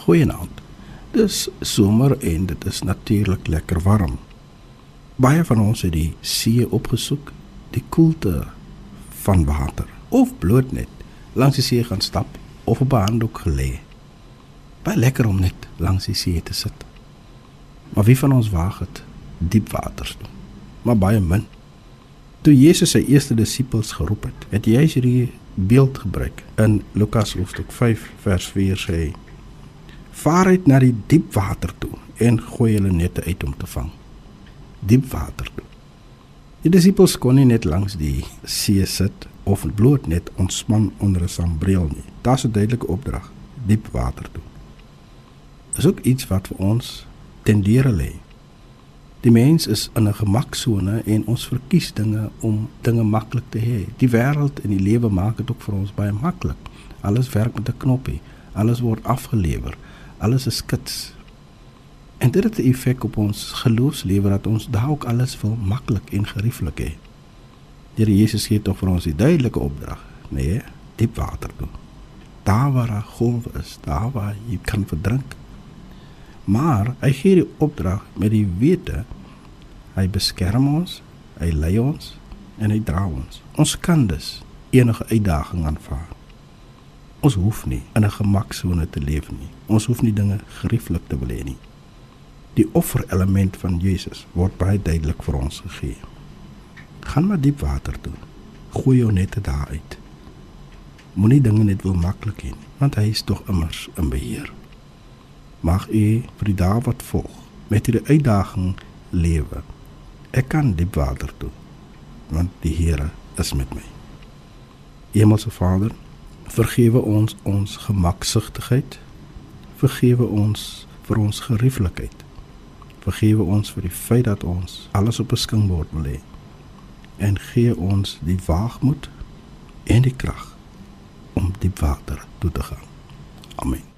Goeienaand. Dis somer en dit is natuurlik lekker warm. Baie van ons het die see opgesoek, die koelte van water, of bloot net langs die see gaan stap, of op 'n handdoek gelê. Baie lekker om net langs die see te sit. Maar wie van ons waag het diep waters toe? Maar baie min. Toe Jesus sy eerste disippels geroep het, het hy hierdie beeld gebruik. In Lukas hoofstuk 5 vers 4 sê hy: "Vaar uit na die diep water toe en gooi hulle nette uit om te vang." Diep water toe. Die disippels kon nie net langs die see sit of bloot net ontspan onder 'n sambreel nie. Daar's 'n duidelike opdrag, diep water toe. Is ook iets wat vir ons ten dere lê. Die mens is in 'n gemaksone en ons verkies dinge om dinge maklik te hê. Die wêreld en die lewe maak dit ook vir ons baie maklik. Alles werk met 'n knoppie, alles word afgelewer, alles is skits. En dit het 'n effek op ons geloofslewe dat ons dalk alles wil maklik en gerieflik hê. Die Here Jesus gee tog vir ons die duidelike opdrag, nee, diep water toe. Daar waar 'n golf is, daar waar jy kan verdrink. Maar hy gee die opdrag met die wete, hy beskerm ons, hy lei ons en hy dra ons. Ons kan dus enige uitdaging aanvaar. Ons hoef nie in 'n gemaksone te leef nie. Ons hoef nie dinge gerieflik te wil hê nie. Die offerelement van Jesus word baie duidelik vir ons gegee. Gaan maar diep water toe. Gooi jou nette daar uit. Moenie dinge net wil maklik hê, want hy is tog immers in beheer. Mag u vir die dae wat volg met hierdie uitdaging lewe. Ek kan diep water toe, want die Here is met my. Hemelse Vader, vergewe ons ons gemaksigtigheid, vergewe ons vir ons gerieflikheid, vergewe ons vir die feit dat ons alles op 'n skinkbord wil hê, en gee ons die waagmoed en die krag om diep water toe te gaan. Amen.